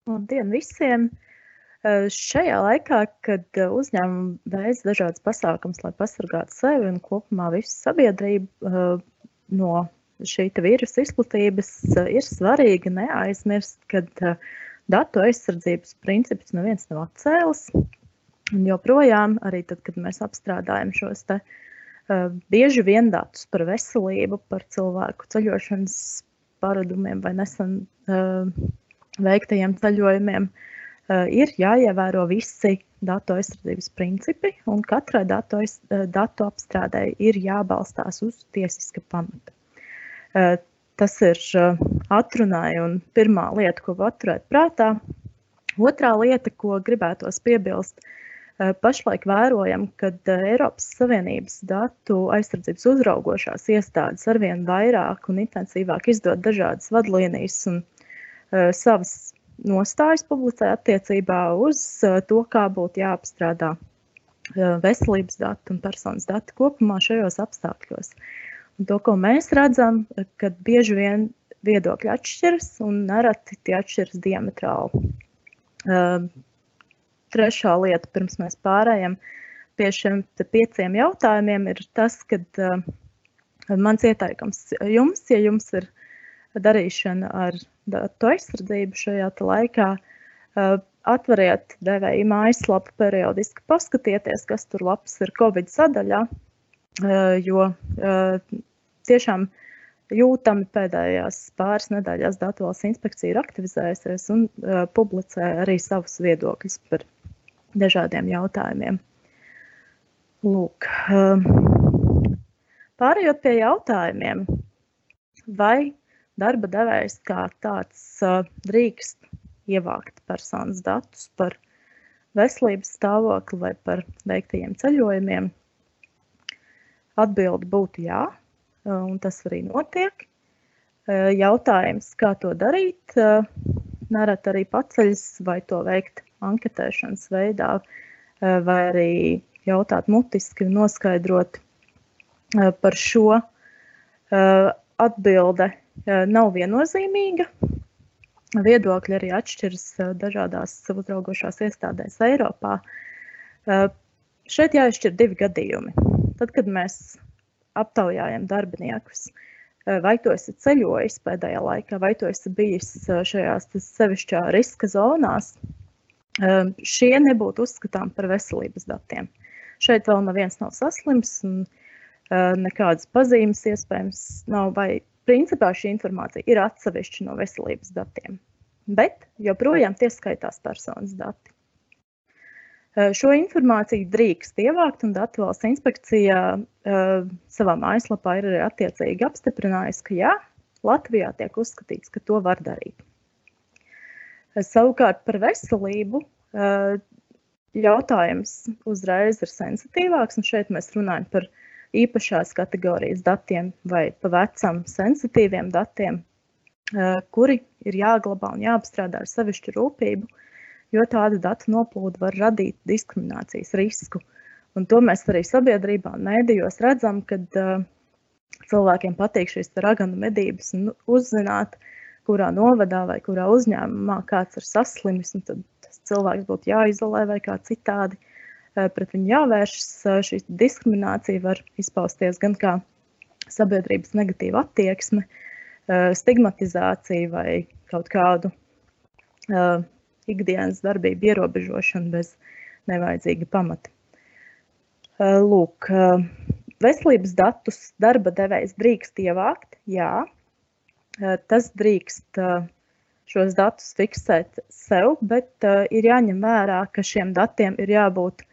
Labdien visiem! Šajā laikā, kad uzņēmumi veic dažādas pasākumus, lai pasargātu sevi un kopumā visu sabiedrību no šī vīrusa izplatības, ir svarīgi neaizmirst, ka datu aizsardzības princips neviens nav atcēlis. Un joprojām, arī tad, kad mēs apstrādājam šos bieži vien datus par veselību, par cilvēku ceļošanas paradumiem vai nesen veiktajiem ceļojumiem, ir jāievēro visi datu aizsardzības principi, un katrai datu apstrādei ir jābalstās uz tiesiska pamata. Tas ir atrunāja un pirmā lieta, ko paturēt prātā. Otrā lieta, ko gribētos piebilst, pašlaik vērojam, kad Eiropas Savienības datu aizsardzības uzraugošās iestādes arvien vairāk un intensīvāk izdod dažādas vadlīnijas un savas nostājas publicē attiecībā uz to, kā būtu jāapstrādā veselības dati un personas dati kopumā šajos apstākļos. Un to, ko mēs redzam, kad bieži vien viedokļi atšķiras un nereti tie atšķiras diametrāli. Trešā lieta, pirms mēs pārējām pie šiem 5 jautājumiem, ir tas, kad mans ieteikums jums, ja jums ir darīšana ar datu aizsardzību šajā laikā, atveriet devēja mājaslapu periodiski, paskatieties, kas tur labs ir Covid sadaļā, jo tiešām jūtami pēdējās pāris nedēļās Datu valsts inspekcija ir aktivizējusies un publicē arī savus viedokļus par dažādiem jautājumiem. Lūk, pārējot pie jautājumiem, vai darba devējs kā tāds drīkst ievākt personas datus par veselības stāvokli vai par veiktajiem ceļojumiem? Atbilde būtu jā, un tas arī notiek. Jautājums, kā to darīt, nereti arī paceļas, vai to veikt anketēšanas veidā, vai arī jautāt mutiski un noskaidrot par šo. Atbilde nav viennozīmīga. Viedokļi arī atšķiras dažādās uzraugošās iestādēs Eiropā. Šeit jāizšķir 2 gadījumi. Tad, kad mēs aptaujājam darbiniekus, vai tu esi ceļojis pēdējā laikā, vai tu esi bijis šajās sevišķā riska zonās, šie nebūtu uzskatām par veselības datiem. Šeit vēl neviens nav saslims un nekādas pazīmes iespējams nav, vai principā šī informācija ir atsevišķa no veselības datiem, bet joprojām tie skaitās personas dati. Šo informāciju drīkst ievākt, un Datu valsts inspekcijā savā mājaslapā ir arī attiecīgi apstiprinājusi, ka jā, Latvijā tiek uzskatīts, ka to var darīt. Savukārt par veselību jautājums uzreiz ir sensitīvāks, un šeit mēs runājam par īpašās kategorijas datiem vai pa vecam sensitīviem datiem, kuri ir jāglabā un jāapstrādā ar sevišķu rūpību, jo tāda datu noplūde var radīt diskriminācijas risku. Un to mēs arī sabiedrībā un mēdījos redzam, kad cilvēkiem patīk šīs raganu medības un uzzināt, kurā novadā vai kurā uzņēmumā kāds ir saslimis, un tad tas cilvēks būtu jāizolē vai kā citādi. Pret viņu jāvēršas. Šī diskriminācija var izpausties gan kā sabiedrības negatīva attieksme, stigmatizācija vai kaut kādu ikdienas darbību ierobežošanu bez nevajadzīga pamata. Lūk, veselības datus darba devējs drīkst ievākt, jā. Tas drīkst šos datus fiksēt sev, bet ir jāņem vērā, ka šiem datiem ir jābūt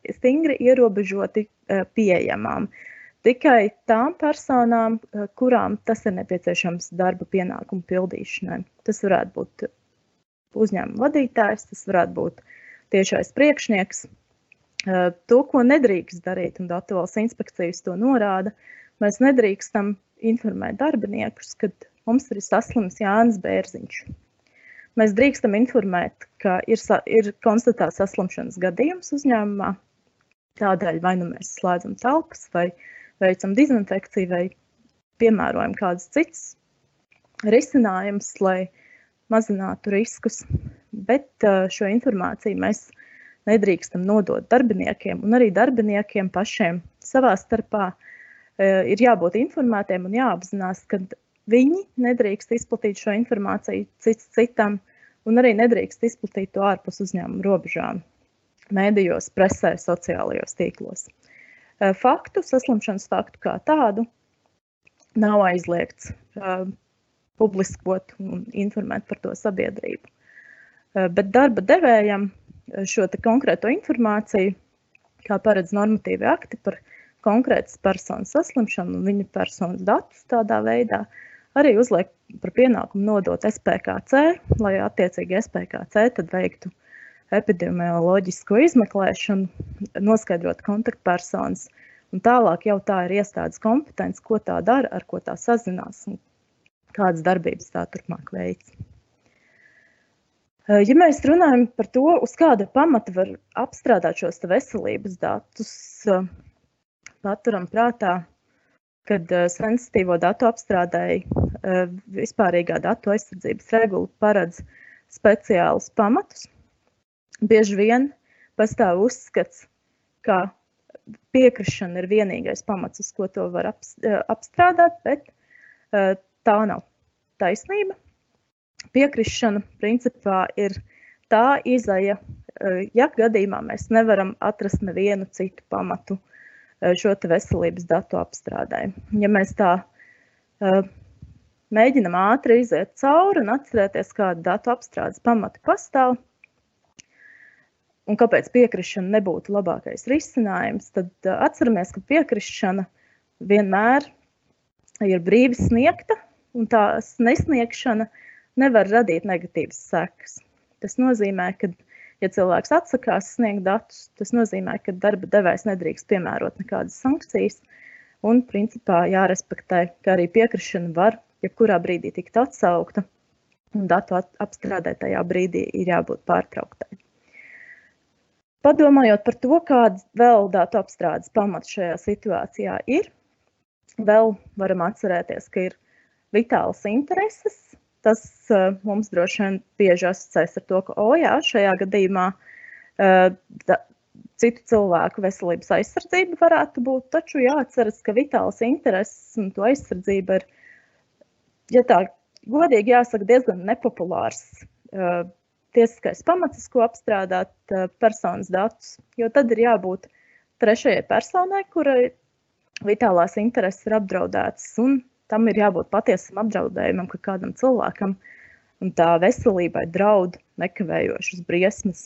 stingri ierobežoti pieejamām. Tikai tām personām, kurām tas ir nepieciešams darba pienākumu pildīšanai. Tas varētu būt uzņēmuma vadītājs, tas varētu būt tiešais priekšnieks. To, ko nedrīkst darīt, un Datu valsts inspekcijas to norāda, mēs nedrīkstam informēt darbiniekus, kad mums ir saslims Jānis Bērziņš. Mēs drīkstam informēt, ka ir konstatēts saslimšanas gadījums uzņēmumā. Tādēļ vai nu mēs slēdzam telpas, vai veicam dezinfekciju, vai piemērojam kādas citas risinājums, lai mazinātu riskus, bet šo informāciju mēs nedrīkstam nodot darbiniekiem, un arī darbiniekiem pašiem savā starpā ir jābūt informētiem un jāapzinās, ka viņi nedrīkst izplatīt šo informāciju cits citam, un arī nedrīkst izplatīt to ārpus uzņēmuma robežām, mēdījos, presē, sociālajos tīklos. Saslimšanas faktu kā tādu nav aizliegts publiskot un informēt par to sabiedrību. Bet darba devējam šo te konkrēto informāciju, kā paredz normatīvi akti par konkrētas personas saslimšanu un viņa personas datus tādā veidā, arī uzliek par pienākumu nodot SPKC, lai attiecīgi SPKC tad veiktu epidemioloģisko izmeklēšanu, noskaidrot kontaktpersonas, un tālāk jau tā ir iestādes kompetence, ko tā dara, ar ko tā sazinās un kādas darbības tā turpmāk veic. Ja mēs runājam par to, uz kāda pamata var apstrādāt šos veselības datus, paturam prātā, kad sensitīvo datu apstrādēji vispārīgā datu aizsardzības regula paredz speciālus pamatus. Bieži vien pastāv uzskats, ka piekrišana ir vienīgais pamats, uz ko to var apstrādāt, bet tā nav taisnība. Piekrišana principā ir tā izeja, ja gadījumā mēs nevaram atrast nevienu citu pamatu šo te veselības datu apstrādē. Ja mēs tā mēģinam ātri iziet cauri un atcerēties, kāda datu apstrādes pamati pastāv, un kāpēc piekrišana nebūtu labākais risinājums, tad atceramies, ka piekrišana vienmēr ir brīvi sniegta, un tās nesniegšana nevar radīt negatīvas sekas. Tas nozīmē, ka, ja cilvēks atsakās sniegt datus, tas nozīmē, ka darba devējs nedrīkst piemērot nekādas sankcijas, un principā jārespektē, ka arī piekrišana var jebkurā brīdī tikt atsaukta, un datu apstrādē tajā brīdī ir jābūt pārtrauktai. Padomājot par to, kāds vēl datu apstrādes pamats šajā situācijā ir, vēl varam atcerēties, ka ir vitālas intereses. Tas mums droši vien bieži asociēs ar to, ka, jā, šajā gadījumā citu cilvēku veselības aizsardzība varētu būt, taču jāatceras, ka vitālas intereses un to aizsardzība ir, ja tā godīgi jāsaka, diezgan nepopulārs tiesiskais pamats, ko apstrādāt personas datus, jo tad ir jābūt trešajai personai, kurai vitālās intereses ir apdraudētas, un tam ir jābūt patiesam apdraudējumam, ka kādam cilvēkam un tā veselībai draud nekavējošas briesmas.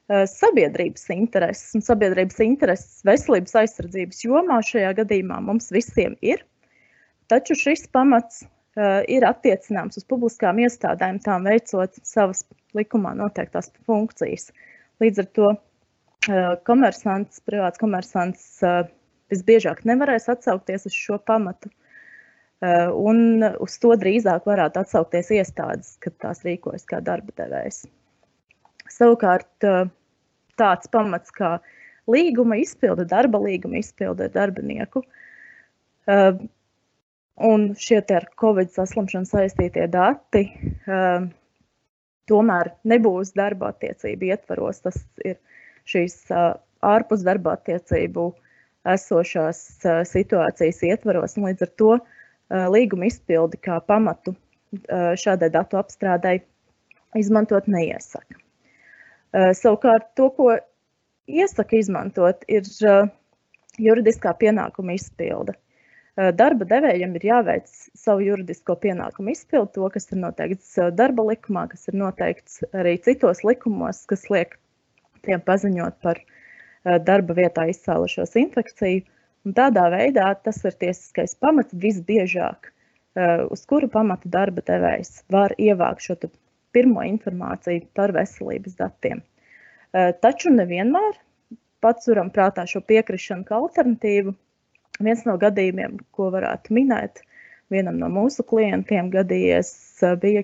Sabiedrības intereses un sabiedrības intereses veselības aizsardzības jomā šajā gadījumā mums visiem ir, taču šis pamats ir attiecināms uz publiskām iestādēm, tām veicot savas likumā noteiktās funkcijas. Līdz ar to privāts komersants visbiežāk nevarēs atsaukties uz šo pamatu, un uz to drīzāk varētu atsaukties iestādes, kad tās rīkojas kā darba devējs. Savukārt tāds pamats kā līguma izpilde, darba līguma izpilde ar darbinieku, un šie ar Covid saslimšanu saistītie dati tomēr nebūs darba attiecību ietvaros. Tas ir šīs ārpus darba attiecību esošās situācijas ietvaros, un līdz ar to līguma izpildi kā pamatu šādai datu apstrādei izmantot neiesaka. Savukārt to, ko iesaka izmantot, ir juridiskā pienākuma izpilde. Darba devējiem ir jāveic savu juridisko pienākumu izpildi, to, kas ir noteikts darba likumā, kas ir noteikts arī citos likumos, kas liek tiem paziņot par darba vietā izcēlušos infekciju. Un tādā veidā tas ir tiesiskais pamats visbiežāk, uz kuru pamatu darba devējs var ievākt šo pirmo informāciju par veselības datiem. Taču nevienmēr paturam prātā šo piekrišanu kā alternatīvu. Viens no gadījumiem, ko varētu minēt, vienam no mūsu klientiem gadījies, bija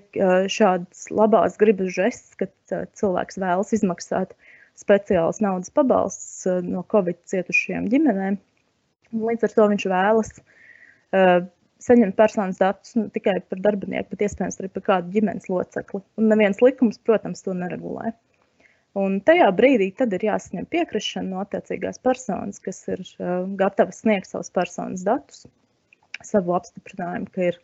šāds labās gribas žests, kad cilvēks vēlas izmaksāt speciāls naudas pabalsts no Covid cietušajām ģimenēm. Līdz ar to viņš vēlas saņemt personas datus tikai par darbinieku, bet iespējams arī par kādu ģimenes locekli. Un neviens likums, protams, to neregulē. Un tajā brīdī tad ir jāsaņem piekrišana no attiecīgās personas, kas ir gatava sniegt savus personas datus, savu apstiprinājumu, ka ir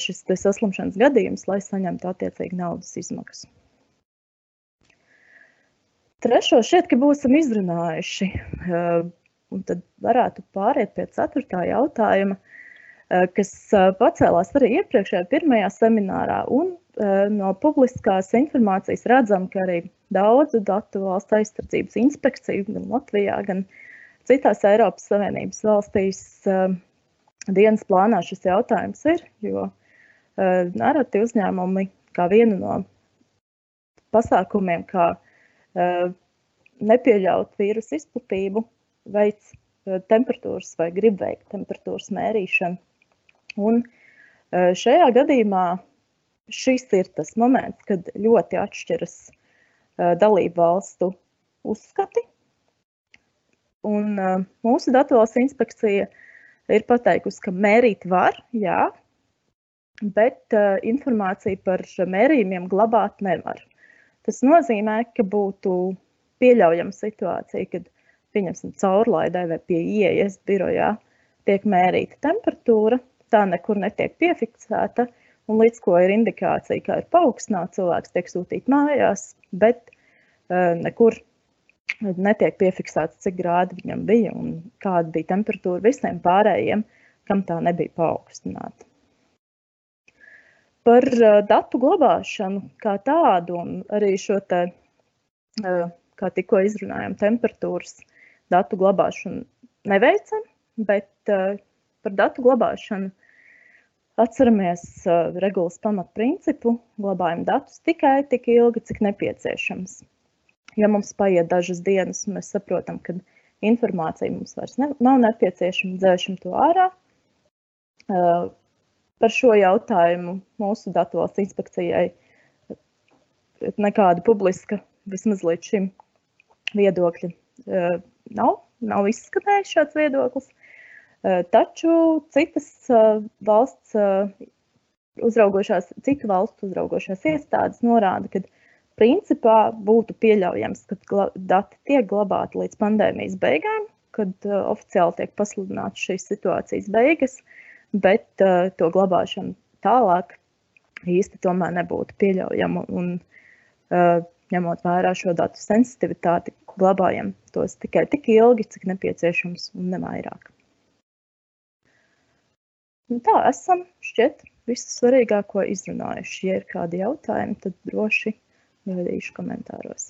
šis saslimšanas gadījums, lai saņemtu attiecīgi naudas izmaksas. Trešo šķiet, ka būsim izrunājuši, un tad varētu pāriet pie 4. jautājuma, kas pacēlās arī iepriekšējā pirmajā seminārā, un no publiskās informācijas redzam, ka arī daudzu datu valsts aizsardzības inspekciju, gan Latvijā, gan citās Eiropas Savienības valstīs dienas plānā šis jautājums ir, jo nereti uzņēmumi kā vienu no pasākumiem, kā nepieļaut vīrusu izplatību, veic temperatūras vai grib veikt temperatūras mērīšanu. Un šajā gadījumā šis ir tas moments, kad ļoti atšķiras dalību valstu uzskati. Un mūsu datu valsts inspekcija ir pateikusi, ka mērīt var, jā, bet informāciju par mērījumiem glabāt nevar. Tas nozīmē, ka būtu pieļaujama situācija, kad, pieņemsim, caurlaidē vai pie ieejas birojā tiek mērīta temperatūra, tā nekur netiek piefiksēta, un līdz ko ir indikācija, kā ir paaugstināta, cilvēks tiek sūtīt mājās, bet nekur netiek piefiksēts, cik grādi viņam bija un kāda bija temperatūra visiem pārējiem, kam tā nebija paaugstināta. Par datu glabāšanu kā tādu un arī šo te, kā tikko izrunājām, temperatūras datu glabāšanu neveicam, bet par datu glabāšanu atceramies regulas pamatprincipu, glabājam datus tikai tik ilgi, cik nepieciešams. Ja mums paiet dažas dienas un mēs saprotam, ka informācija mums vairs nav nepieciešama, dzēšam to ārā. Par šo jautājumu mūsu datu valsts inspekcijai nekāda publiska, vismaz līdz šim, viedokļi nav izskanējis šāds viedoklis. Taču citu valstu uzraugošās iestādes norāda, ka principā būtu pieļaujams, ka dati tiek glabāti līdz pandēmijas beigām, kad oficiāli tiek pasludināts šīs situācijas beigas, bet to glabāšanu tālāk īsti tomēr nebūtu pieļaujama. Un ņemot vērā šo datu sensitivitāti, glabājam tos tikai tik ilgi, cik nepieciešams un nevairāk. Un tā esam šķiet visu svarīgāko izrunājuši. Ja ir kādi jautājumi, tad droši gaidīšu komentāros.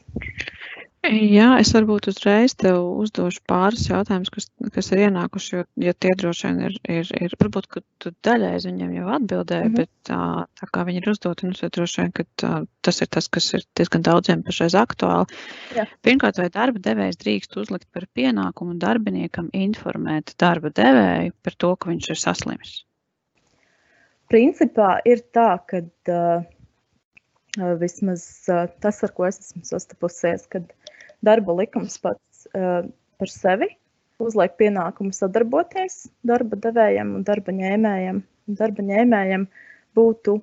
Jā, es varbūt uzreiz tev uzdošu pāris jautājumus, kas ir ienākuši, jo tie droši vien ir varbūt, ka tu daļai viņiem jau atbildēji, bet tā kā viņi ir uzdoti, tad droši vien, ka tas ir tas, kas ir diezgan daudziem pašreiz aktuāli. Jā. Pirmkārt, vai darba devējs drīkst uzlikt par pienākumu darbiniekam informēt darba devēju par to, ka viņš ir saslims? Principā ir tā, ka vismaz tas, ar ko es esmu sastapusies, kad darba likums pats par sevi uzliek pienākumu sadarboties darba devējiem un darba ņēmējiem. Darba ņēmējiem būtu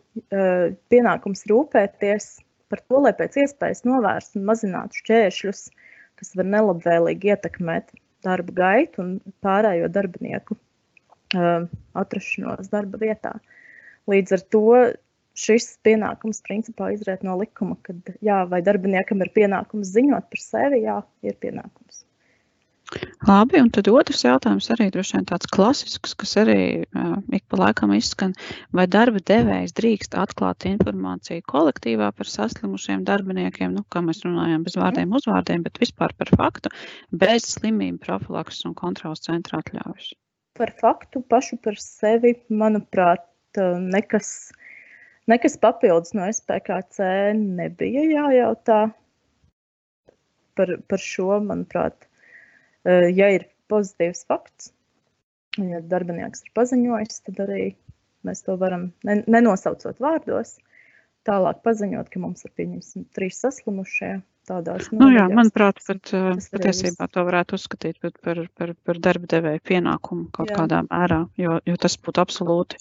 pienākums rūpēties par to, lai pēc iespējas novērstu un mazinātu šķēršļus, kas var nelabvēlīgi ietekmēt darba gaitu un pārējo darbinieku atrašanos darba vietā. Līdz ar to šis pienākums principā izriet no likuma, kad jā, vai darbiniekam ir pienākums ziņot par sevi, jā, ir pienākums. Labi, un tad otrs jautājums arī droši vien tāds klasisks, kas arī ik pa laikam izskan, vai darba devējs drīkst atklāt informāciju kolektīvā par saslimušiem darbiniekiem, kā mēs runājām bez vārdiem uzvārdiem, bet vispār par faktu, bez slimību profilakses un kontrolas centra atļaujas? Par faktu pašu par sevi, manuprāt, nekas papildus no SPKC nebija jājautā par šo, manuprāt. Ja ir pozitīvs fakts, ja darbinieks ir paziņojis, tad arī mēs to varam, nenosaucot vārdos, tālāk paziņot, ka mums ir pieņemsim 3 saslimušie, tādās Nu jā, nodaļās. manuprāt, pat Tas arī viss. patiesībā to varētu uzskatīt par darba devēja pienākumu kaut Jā. kādā mērā, jo tas būtu absolūti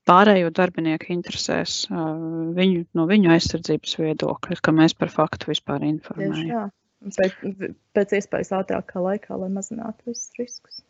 pārējo darbinieku interesēs, no viņu aizsardzības viedokļa, ka mēs par faktu vispār Tieši informējam. tā. Un pēc iespējas ātrākā laikā, lai mazinātu visus riskus.